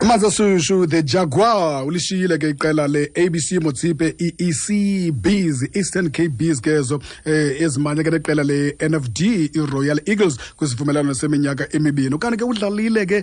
Amanzi ashushu, the Jaguar ulishiyile ke iqela le-ABC Motsepe, i-EC Bees, Eastern Cape Bees ke ezo ezimanye ke neqela le-NFD, i-Royal Eagles, kwisivumelwano seminyaka emibini. Ukanti ke udlalile ke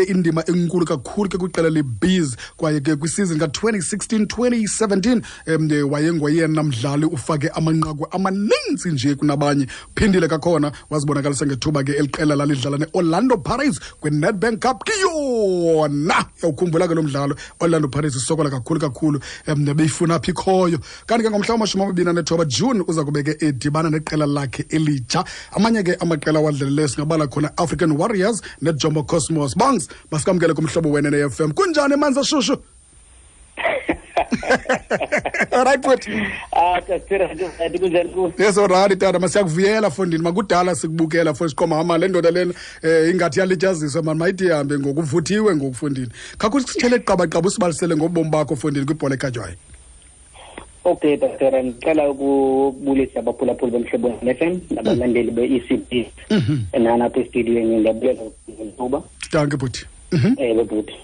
indima enkulu kakhulu ke kwiqela le-Bees, kwaye ke kwisizini ka-2016 2017 wayengoyena mdlali ufake amanqaku amaninzi nje kunabanye. Phindile kakhona wazibonakalisa ngethuba ke eliqela lalidlala ne-Orlando Pirates kwi-Nedbank Cup. Kiyona yawukhumbula ke lo mdlalo, Orlando Pirates isokola kakhulu kakhulu, beyifuna phi ikhoyo. Kanti ke ngomhla wama-29 June uza kube ke edibana neqela lakhe elitsha. Amanye ke amaqela awadlaleleyo singabala khona African Warriors neJomo Cosmos. Bongs, masikamkele kumhlobo wena ne-FM. Kunjani, manzi ashushu? Alright, bhuti. Ah, Tasira, kunjani ku? Yes, alright tata, masiyakuvuyela fondini. Makudala sikubukela fo siqoma hama le ndoda lena ingathi yalityaziswa mani, mayithi ihambe ngokuvuthiwe ngokufundini. Khawukusithele qabaqaba usibalisele ngobomi bakho fondini kwibhola ekhatywayo. Okay, Tasira, ngicela ukubulisa abaphulaphuli bomhlobo FM nabalandeli be-ECB. Nana apha estudiyweni, ndiyabulela ngethuba. Dankie, bhuti. Ewe, bhuti.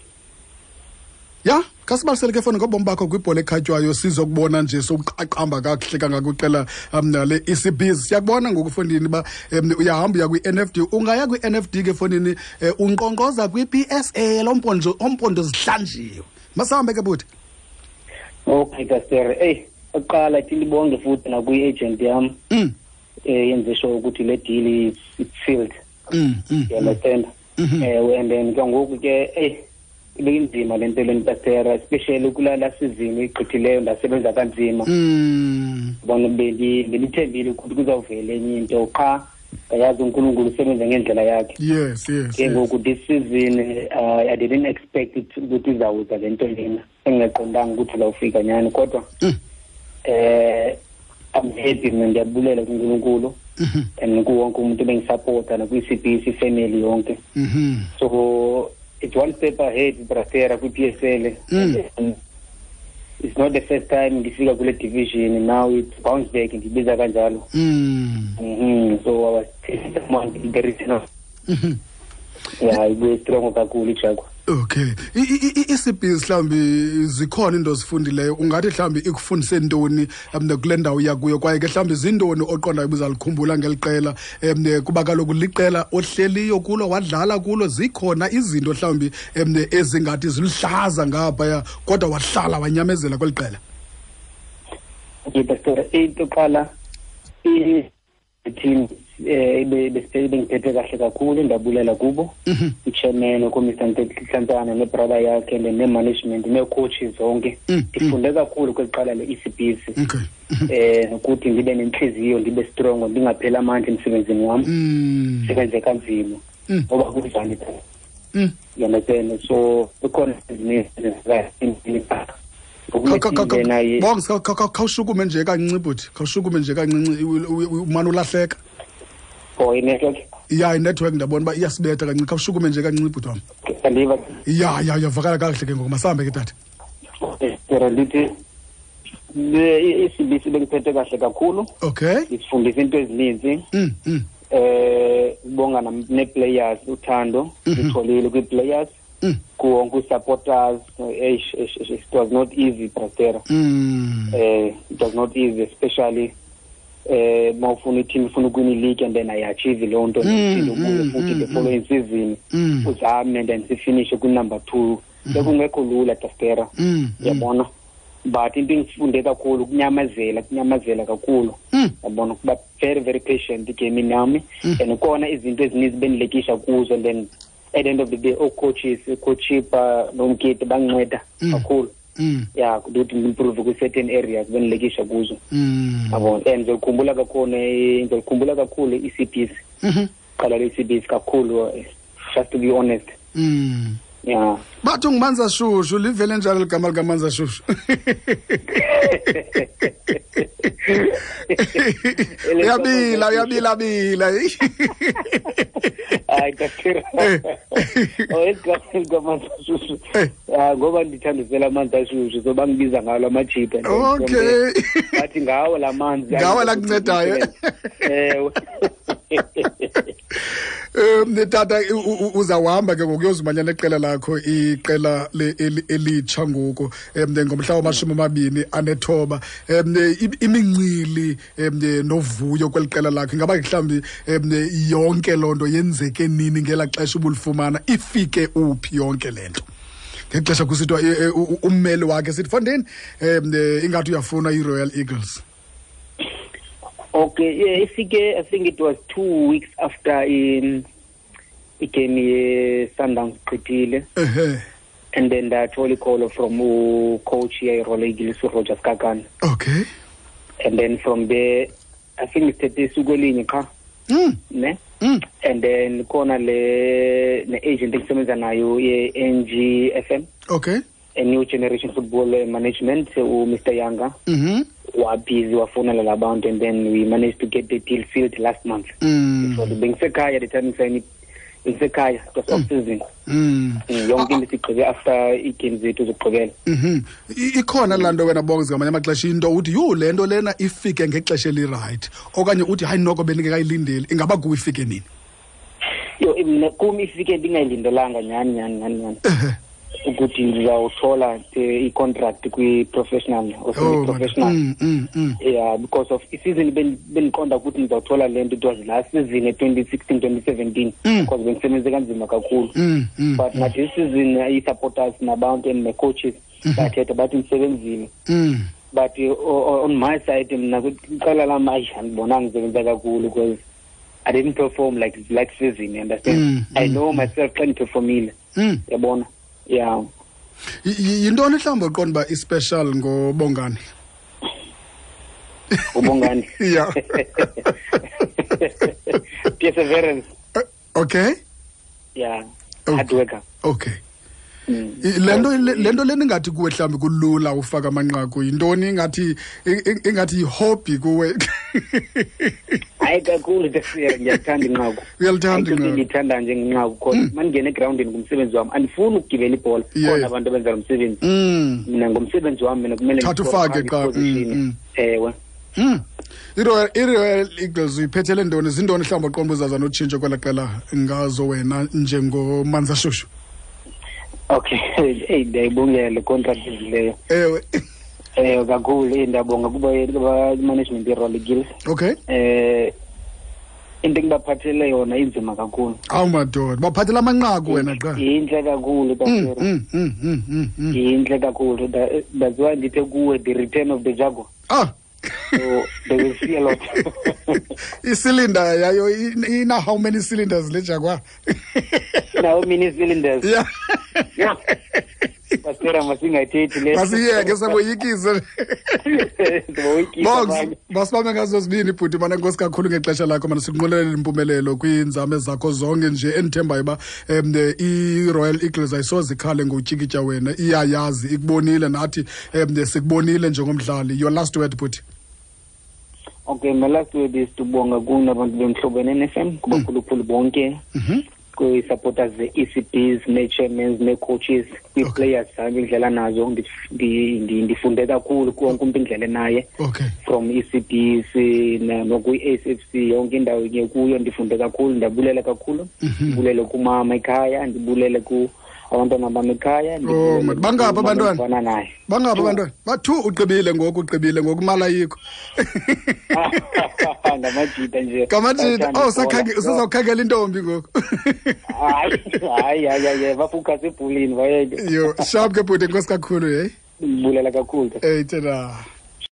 Ya, khasibalisele ke fona ngobomi bakho kwibhola ekhatywayo, sizokubona nje sokuqaqamba kakuhle kangaka kwiqela le-EC Bees. Siyakubona ngoku fondini uba uyahamba uya kwi-NFD. Ungaya kwi-NFD ke fondini, unkqonkqoza kwi-PSL, ompondo zihlanjiwe. Masihambe ke, bhuti. Okay, Pastor. Hey, oqala ithi libonge futhi nakwi-agent yam. Yenze sure ukuthi le deal is it's sealed. You understand? And then ke ngoku ke, hey, ibinzima le nto leni, Pastor, especially kulala season igqithileyo, ndasebenza kanzima. Bona bendithembile ukuthi kuzawuvela enye into, qha yazi uNkulunkulu usebenza ngendlela yakhe. Yes. Ke ngoku this season, I didn't expect it ukuthi izawuza le nto lena, engingaqondanga ukuthi izawufika nyani, kodwa I'm happy mina, ndiyabulela kuNkulunkulu and kuwonke umuntu bengisupporta nakwi-CBC family yonke. So it's one step ahead, brother, kwi-PSL. And it's not the first time ndifika kule division, now it's bounce back, ndibiza kanjalo. So I was telling someone the reason. Yeah, ibuye strong kakhulu iJaguar. Okay. I-ECB mhlawumbi zikhona into ozifundileyo, ungathi mhlawumbi ikufundise ntoni kule ndawo uya kuyo, kwaye ke mhlawumbi zintoni oqondayo ubuzalikhumbula ngeli qela, kuba kaloku liqela ohleliyo kulo, wadlala kulo, zikhona izinto mhlawumbi ezingathi ziluhlaza ngaphaya kodwa wahlala wanyamezela kweli qela? Okay, Pastor, into qala, i-team bengiphethe kahle kakhulu, ndabulela kubo, i-chairman uMr Nhlantsana nebrother yakhe ne-management nee-coaches zonke. Ndifunde kakhulu kweli qala le-ECBC, nokuthi ndibe nenhliziyo, ndibe strong, ndingapheli amandla emsebenzini wam, sebenze kanzima ngoba kunjani, you understand? So kukhona ezinye. Bongs, khawushukume nje kancinci, bhuti, khawushukume nje kancinci, umane ulahleka. Oh, i-network. Ya, inetwork ndiyabona uba iyasibetha kancinci. Khawushukume nje kancinci, bhuti wam. Andiva. Ya, uyavakala kakuhle ke ngoku. Masihambe ke, tata. Ndithi i-ECBC bengiphethe kahle kakhulu. Isifundisa into ezininzi. Ubonga ne-players, uthando litholile kwi-players, kuwonke i-supporters. Eish, eish, eish, it was not easy, brother. It was not easy, especially mawufuna i-team ifuna ukuwina i-league and then ayi-achieve loo nto, uphinde ubuye futhi the following season uzame and then sifinishe kwi-number 2. Bekungekho lula, Dastera, yabona, but into engifunde kakhulu kunyamazela, kunyamazela kakhulu, yabona, kuba very very patient igamini yami, and khona izinto ezininzi bendilekisha kuzo, and then at the end of the day oo-coaches, ucoach noMkete banginceda kakhulu, ya, ukuthi ngimprove kwi-certain areas bendilekisha kuzo, yabona. And ngizokhumbula kakhulu, ngizokhumbula kakhulu i-ECBC, qala le-ECBC kakhulu, just to be honest. Yeah. Bathi ungumanzi ashushu, livele njalo ligama likamanzi ashushu? Uyabila, uyabila bila. Hayi, Doctor. Oh, igama likamanzi ashushu. Ah, ngoba ndithandisela amanzi ashushu, so bangibiza ngalo amajita. Bathi ngawo la manzi. Ngawo la kuncedayo. Ewe. Tata, uzawuhamba ke ngoku uyozimanya neqela lakho, iqela elitsha ngoku ngomhla wama-29. Imincili novuyo kweli qela lakho, ingaba mhlawumbi yonke loo nto yenzeke nini ngelaa xesha ubulifumana? Ifike uphi yonke le nto ngexesha kusithiwa ummeli wakhe sithi fondini ingathi uyafuna i-Royal Eagles? Okay, yeah, ifike, I think it was 2 weeks after in igame ye-Sundowns gqithile. And then ndathola icall from ucoach ye-Royal Eagles, uRoger Sikhakhane. And then from there, I think sithethe isuku elinye qha ne. And then khona le ne-agent engisebenza nayo ye-NGFM, a New Generation Football Management, uMr Yanga, wabhizi wafonela labantu, and then we managed to get the deal sealed last month. So bengisekhaya the time ngisayini, bengisekhaya, it was off season. Yonke into sigqibe after ii-games zethu zokugqibela. Ikhona laa nto wena Bongs, ngamanye amaxesha into uthi, "Yho, le nto lena ifike ngexesha elirayithi," okanye uthi, "Hayi noko, bendingekayilindeli." Ingaba kuwe ifike nini? Yho, mna kum ifike ndingayilindelanga nyhani nyhani nyhani nyhani ukuthi ndizawuthola i-contract kwi-professional or semi-professional. Yeah, because of isizini bendiqonda ukuthi ndizawuthola le nto, it was last season, e-2016 2017, because bendisebenze kanzima kakhulu. But nathi season ii-supporters nabantu and ne-coaches bathetha bathi ndisebenzile. But on my side mna iqela lam, ayi, andibonanga ndisebenza kakhulu because I didn't perform like season, you understand? I know myself xa ndiperformile. Yabona, yeah. Yintoni mhlawumbi oqonda uba ispecial ngoBongani? UBongani? Yeah. Perseverance. Yeah. Hard worker. Le nto lena ingathi kuwe mhlawumbi kulula ufaka amanqaku, yintoni? Ingathi yihobby kuwe. Hayi kakhulu, Tafira, ngiyathanda inqaku. Uyalithanda Ayikho into inqaku. endiyithanda njengenqaku khona mandingena egrawundini ngumsebenzi wam, andifuni ukugibela ibhola. Khona abantu abenza lo msebenzi. Mina ngomsebenzi wam mina kumele Thatha ndiscore ufake phambi qha. Position. Ewe. I-Royal Eagles uyiphethele ntoni? Zintoni mhlawumbi oqonda uzaza notshintsho kwela qela ngazo wena njengoManzashushu? Okay, eyi, ndiyayibongela le contract ezileyo. Kakhulu, eyi, ndiyabonga kuba management ye-Royal Eagles. Into engibaphathele yona inzima kakhulu. Awu madoda, baphathela amanqaku wena qha. Yinhle kakhulu, Tafira. Yinhle kakhulu. That's why ndithe kuwe the return of the Jaguar. So they will see a lot. Isilinda yayo ina how many cylinders le Jaguar? How many cylinders? Yeah. Yeah. Pastora, masingayithethi le. Masiyeke, saboyikise. Siboyikisa Bongs, abanye. Masibambe ngazo zibini, bhuti. Mana, enkosi kakhulu ngexesha lakho mana, sikunqwenelela impumelelo kwiinzame zakho zonke nje, endithembayo uba i-Royal Eagles ayisoze ikhale ngotyikitya wena, iyayazi, ikubonile, nathi sikubonile njengomdlali. Your last word, bhuti. Okay, my last word is to bonga kuni abantu beMhlobo FM, kubakhulukhulu bonke, kwi-supporters ze-ECBs, nee-chairmans, nee-coaches, kwii-players zam indlela nazo ndifunde kakhulu kuwonke umntu indlela naye. From ECBs nokwi-SFC, yonke indawo ke kuyo ndifunde kakhulu, ndiyabulela kakhulu. Ndibulele kumama ekhaya, ndibulele ku abantwana bam ekhaya. Oh, man. Bangaphi abantwana? Ndibona naye. Bangaphi abantwana? Bathu ugqibile ngoku, ugqibile ngoku, imali ayikho. Ngamajita nje. Ngamajita. Bayathanda Oh, ibhola. usazawukhangela intombi ngoku. Hayi, hayi, hayi, hayi, bafocus ebholeni, bayeke. Yo, sharp ke bhuti, enkosi kakhulu, hey. Ndibulela kakhulu. Hey, tena.